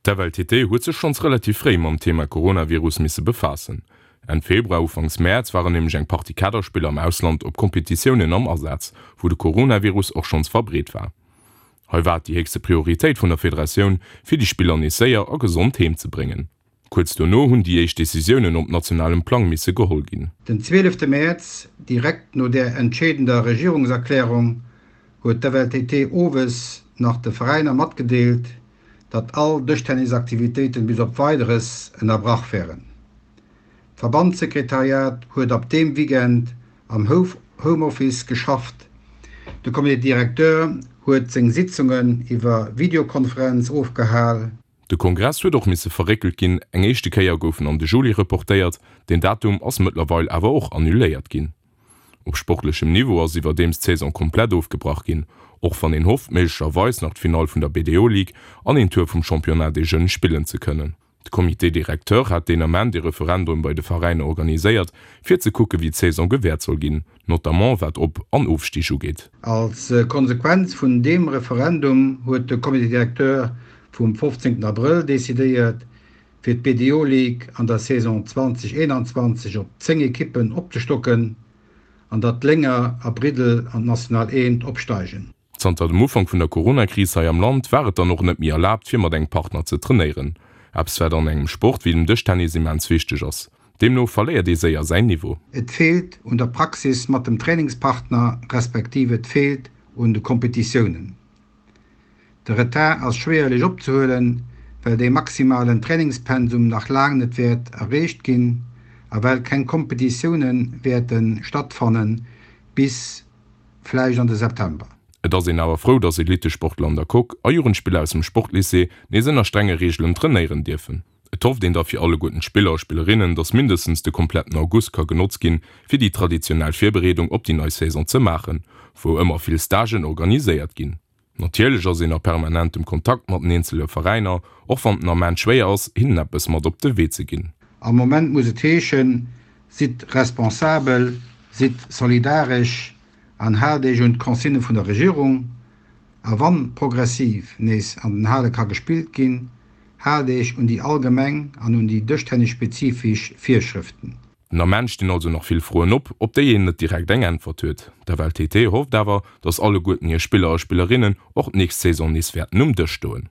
D'FLTT huet sech schonns relativ fréi mam Thema Coronavirus misse befaassen. Enn Februar, Ufanks Mäerz waren nämlech eng Partie Kaderspiller am Ausland op Kompetitiounen am Asaz, wou de Coronavirus och schonns verbreet war. Hei war et déi héchste Prioritéit vun der Federatioun, fir déi Spiller nees séier a gesond heem ze bréngen. Kuerz dono hunn déi éischt Decisiounen op nationalem Plang misse geholl ginn. Den 12 Mäerz, direkt no där entscheedender Regierungserklärung, huet d'FLTT owes nach de Veräiner matgedeelt, datt all Dëschtennisaktivitéiten bis op Weideres ënnerbrach wären. D'Verbandssekretariat huet ab deem Weekend am Homeoffice geschafft, de Comité directeur huet seng Sitzungen iwwer Videokonferenz ofgehal. De Kongress huet och misse verréckelt ginn, eng éischte Kéier gouf en an de Juli reportéiert, deen Datum ass mëttlerweil awer och annuléiert ginn. Op sportlechem Niveau ass iwwerdeems d'Saison komplett ofgebrach ginn, och wann een hofft, méiglecherweis nach d'Finall vun der BDO Ligue an een Tour vum Championnat des Jeunes spillen ze kënnen. De Comité directeur hat deen Ament ee Referendum bei de Veräiner organiséiert, fir ze kucke wéi d'Saison gewäert soll ginn, notamment wat Op an Ofstig ugeet. Als Konsequenz vun deem Referendum huet de Comité directeur vum 15 Abrëll decidéiert, fir d'BDO Ligue an der Saison 2021 op 10 Ekippen opzestocken an datt Lénger a Briddel an d'National Eent opsteigen. Zanter dem Ufank vun der Corona-Kris hei am Land war et dann och net méi erlaabt, fir mat engem Partner ze trainéieren. Eppes wat an engem Sport wéi dem Dëschtennis immens wichteg ass. Deemno verléiert ee séier säin Niveau. Et feelt un der Praxis mat dem Trainingspartner, respektiv et feelt un de Kompetitiounen. De Retard ass schwéierlech opzehuelen, well dee maximalen Trainingspensum nach laang net wäert erreecht ginn a well keng Kompetitioune wäerte stattfanne bis vläicht an de September. Et ass een awer frou, dass Elittesportler an der Coque a Jugendspiller aus dem Sportlycée nees ënner strenge Reegelen trainéieren dierfen. Et hofft een da fir alleguerten d'Spiller a Spillerinnen, dass mindestens de kompletten August ka genotzt ginn, fir déi traditionell Virbereedung op déi nei Saison ze maachen, wou ëmmer vill Stagen organiséiert ginn. Natierlech ass een a permanentem Kontakt mat den eenzele Veräiner, och wann den Ament schwéier ass, hinnen eppes mat op de Wee ze ginn. Am Moment muss et heeschen, Sidd responsabel, sidd solidaresch an haalt Iech un d'Consignë vun der Regierung. A wann progressiv nees an den Hale ka gespillt ginn, haalt Iech un déi allgemeng an un déi dëschtennisspezifesch Virschrëften. Den Ament stinn also nach vill Froen op, op déi een net direkt eng Äntwert huet. D'FLTT hofft awer, datt alleguerten hir Spiller a Spillerinnen och d'nächst Saison nees wäerten um Dësch stoen.